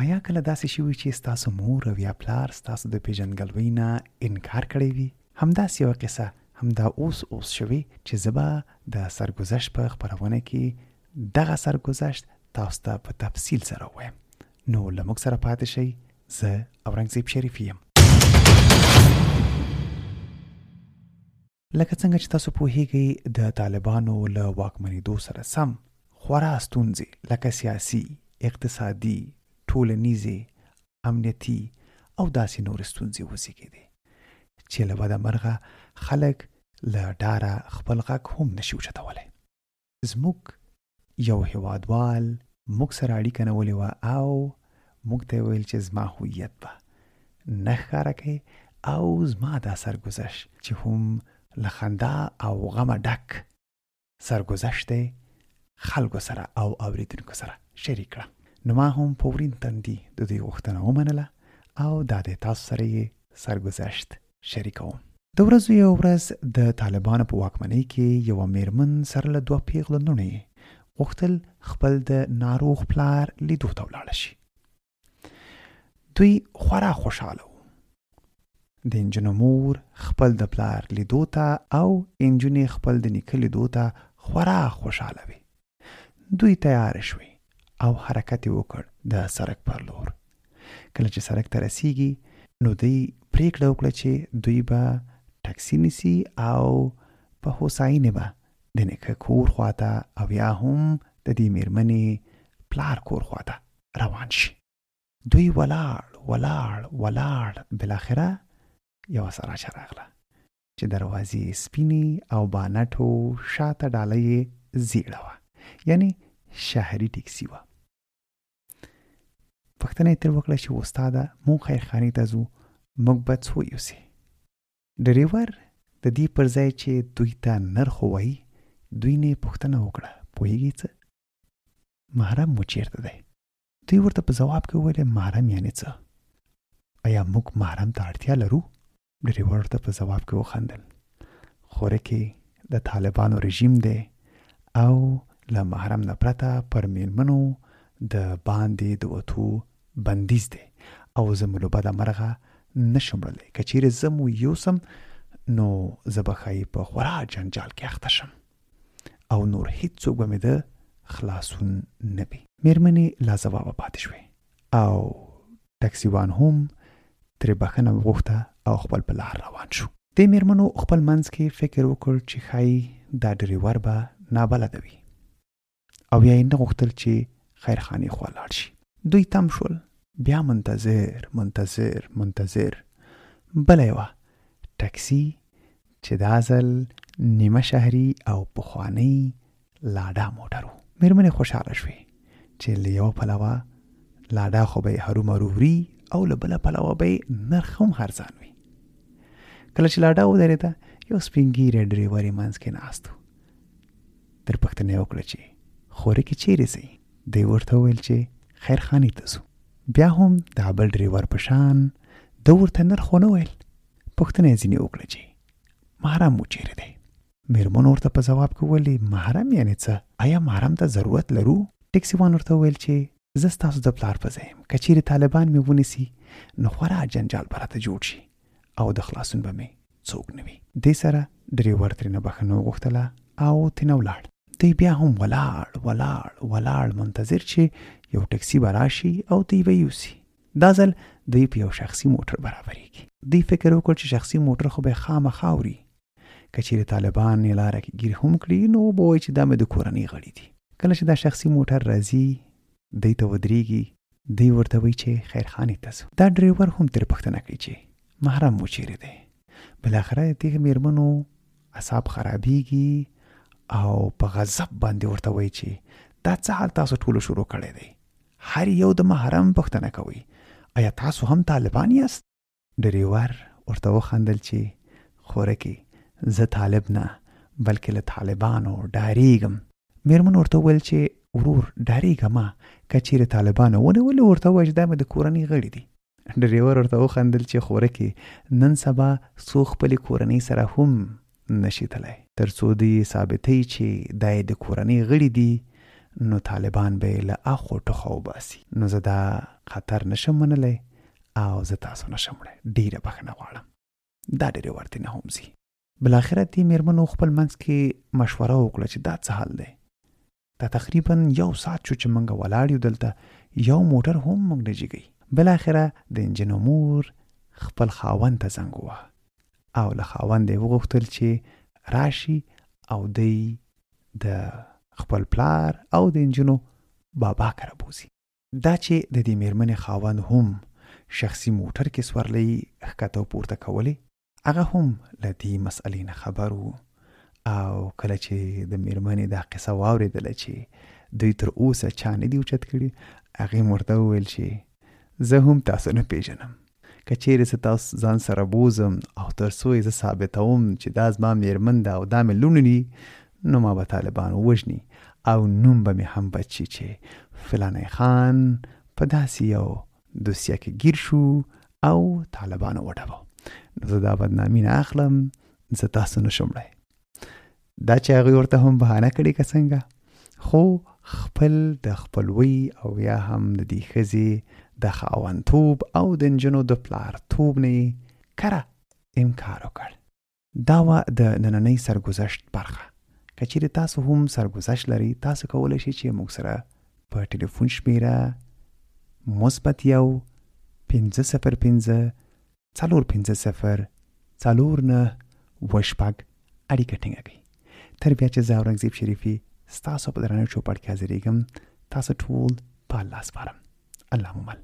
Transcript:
آیا کله داسې شوي چې ستاسو مور او یا پلار ستاسو د پیژندګلوۍ نه انکار کړی وي؟ همداسې یوه قصه همدا اوس شوي چې زه به د سرګذشت په خپرونه کې دغه سرګذشت تاسو ته په تفصیل سره ووایم. نو له موږ سره پاتې شئ. زه اورنګزیب شریفي یم. لکه څنګه چې تاسو پوهیږئ د طالبانو له واکمنېدو سره سم خورا ستونزې لکه سیاسي، اقتصادي، ټولنیزې، امنیتي او داسې نورې ستونزې وزېږېدې چې له بده مرغه خلک له ډاره خپل غږ هم نشي اوچتولی. زموږ یو هېوادوال موږ سره اړیکه نیولې وه او موږ ته یې ویل چې زما هویت به نه ښکاره کوي او زما دا سرګذشت چې هم له خندا او غمه ډک سرګذشت دی خلکو سره او اوریدونکو سره شریک کړه. نو ما هم په ورین تندي د دوی غوښتنه ومنله او دا د تاسو سره یې سرګذشت شریکوم. د ورځو یو ورځ د طالبانو په واکمنۍ کې یوه میرمن سره له 2 پیغلو لوڼو یې غوښتل خپل د ناروغ پلار لیدو ته ولاړه شي. دوی خورا خوشحاله وو. د انجونو مور خپل د پلار لیدو ته او انجونې خپل د نیکه لیدو ته خورا خوشحاله وي. دوی تیار شوي او حرکت وکړ د سړک پر لور. کله چې سړک ته رسیږي نو دوی پریکړه وکړه چې دوی به ټکسي نیسي او په هوساینې به د نیکه کور خواته او یا هم د دې میرمنې پلار کور خواته روان شي. دوی ولاړ بالاخره یوه سراچه راغله چې دروازې سپینې او بانټو شاته ډاله یې زیړه وه، یعنی شهري ټکسي وه. پوښتنه یې ترې وکړه چې استاده مونږ خیرخانې ته ځو، موږ به څو یوسې؟ ډریور د دې پر ځای چې دوی ته نرخ ووایي دوی نه پوښتنه وکړه پوهیږي څه؟ محرم مو چیرته دی؟ دوی ورته په ځواب کې وویل محرم یعنې څه؟ آیا موږ محرم ته اړتیا لرو؟ ډریور ورته په ځواب کې وخندل خوره کې د طالبانو رژیم دی او له محرم نه پرته پر میرمنو د باندې د وتو بندیز دی او زه مو له بده مرغه نشم وړلی. که چیرې زه مو یوسم نو زه به ښایي په خورا جنجال کې اخته شم او نور هیڅوک به مې د خلاصون نه وي. میرمنې لاځوابه پاتې شوې او ټکسیوان هم ترې بخښنه وغوښته او خپل په لار روان شو. دې میرمنو خپل منځ کې فکر وکړ چې ښایي دا ډریور به نابلده وي او یا یې نه غوښتل چې خیرخانې خوا لاړ شي. دوی تم شول. بیا منتظر بله یوه ټکسي چې دا ځل نیمه شهري او پخوانی لاډا موټر و. میرمنې خوشحاله شوې چې له یوه پلوه لاډا خو به یې هرومرو وړي او له بله پلوه به یې نرخ هم ارزان وي. کله چې لاډا ودرېده یو سپین ږیری ډریور یې منځ کې ناست و. ترې پوښتنه یې وکړه چې خورې کې چیرې ځئ؟ دوی ورته وویل چې خیرخانې ته ځو. بیا هم دا بل ډریور په شان ده ورته نرخ ونه ویل. پوښتنه یې ځینې وکړه چې محرم مو چیرې دی؟ میرمنو ورته په ځواب کې وویل محرم یعنې څه؟ آیا محرم ته ضرورت لرو؟ ټکسیوان ورته وویل چې زه ستاسو د پلار په ځای یم، که چیرې طالبان مې ونیسي نو خورا جنجال به راته جوړ شي او د خلاصون به مې څوک نه وي. دې سره ډریور ترېنه بخښنه وغوښتله او ترېنه ولاړ. دوی بیا هم ولاړ منتظر چې یو ټکسي به راشي او دوی به یوسي. دا ځل دوی په یو شخصي موټر برابرېږي. دوی فکر وکړ چې شخصي موټر خو به خامخا وړي، که چیرې طالبان یې لاره کې ګیر هم کړي نو به وایي چې دا مې د کورنۍ غړي دي. کله چې دا شخصي موټر راځي دوی ته ودرېږي، دوی ورته وایي چې خیرخانې ته ځو. دا ډریور هم ترې پوښتنه کوي چې محرم مو چیرې دی؟ بالاخره دغه میرمنو اعصاب خرابېږي او په غضب باندې ورته وایي چې دا څه حال تاسو ټولو شروع کړی دی؟ هر یو د محرم پوښتنه کوي. آیا تاسو هم طالبان یاست؟ ډریور ورته وخندل چې خورکې زه طالب نه بلکې له طالبانو ډارېږم. میرمن ورته وویل چې ورور ډارېږه مه، که چیرې طالبانو ونیولې ورته ووایه چې دا مې د کورنۍ غړي دي. ډریور ورته وخندل چې خورکې نن سبا څوک خپلې کورنۍ سره هم نشي تللی، تر څو دوی ثابتوي چې دا یې د کورنۍ غړي دي نو طالبان به یې له اخو ټوخه وباسي. نو زه دا خطر نشم منلی او زه تاسو نشم وړی. ډیره بخښنه غواړم. دا ډیرې ورتې نه هم ځي. بالاخره دې مېرمنو خپل منځ کې مشوره وکړه چې دا څه حل دی. دا تقریبا 1 ساعت شو چې موږ ولاړ یو دلته، یو موټر هم موږ نه جګوي. بالاخره د انجن مور خپل خاوند ته زنګ ووهه او له خاوند یې وغوښتل چې راشي او دی د خپل پلار او د انجنو بابا کره بوزي. دا چې د دې مېرمنې خاوند هم شخصي موټر کې سورلی ښکته پورته کولی، هغه هم له دې مسئلې نه خبر وو. او کله چې د مېرمنې دا قصه واورېدله چې دوی تر اوسه چا نه دي اوچت کړي، هغې ورته وویل چې زه هم تاسو نه پیژنم. که چیرې زه تاسو ځان سره بوزم او تر څو یې زه ثابتوم چې دا زما مېرمن ده او دا مې لوڼې دي، نو ما به طالبان ووژني او نوم به مې هم بد شي چې فلانی خان په داسې یو دوسیه کې گیر شو او طالبانو وډبو. نو زه دا بدنامي نه اخلم، زه تاسو نشم وړی. دا چې هغوی ورته هم بهانه کړې که څنګه، خو خپل د خپلوۍ او یا هم د دې ښځې د خاوندتوب او د نجونو د پلارتوب نه یې کره انکار وکړ. دا وه د نننۍ سرګذشت برخه. که چیرې تاسو هم سرګذشت لرئ، تاسو کولی شئ چې موږ سره په ټلیفون شمیره -50505 450 49 اړیکه ټینګه کړئ. تر بیا چې زه اورنګزیب شریفي ستاسو په درانه چوپړ کې حاضرېږم، تاسو ټول په الله سپارم. الله مو مل.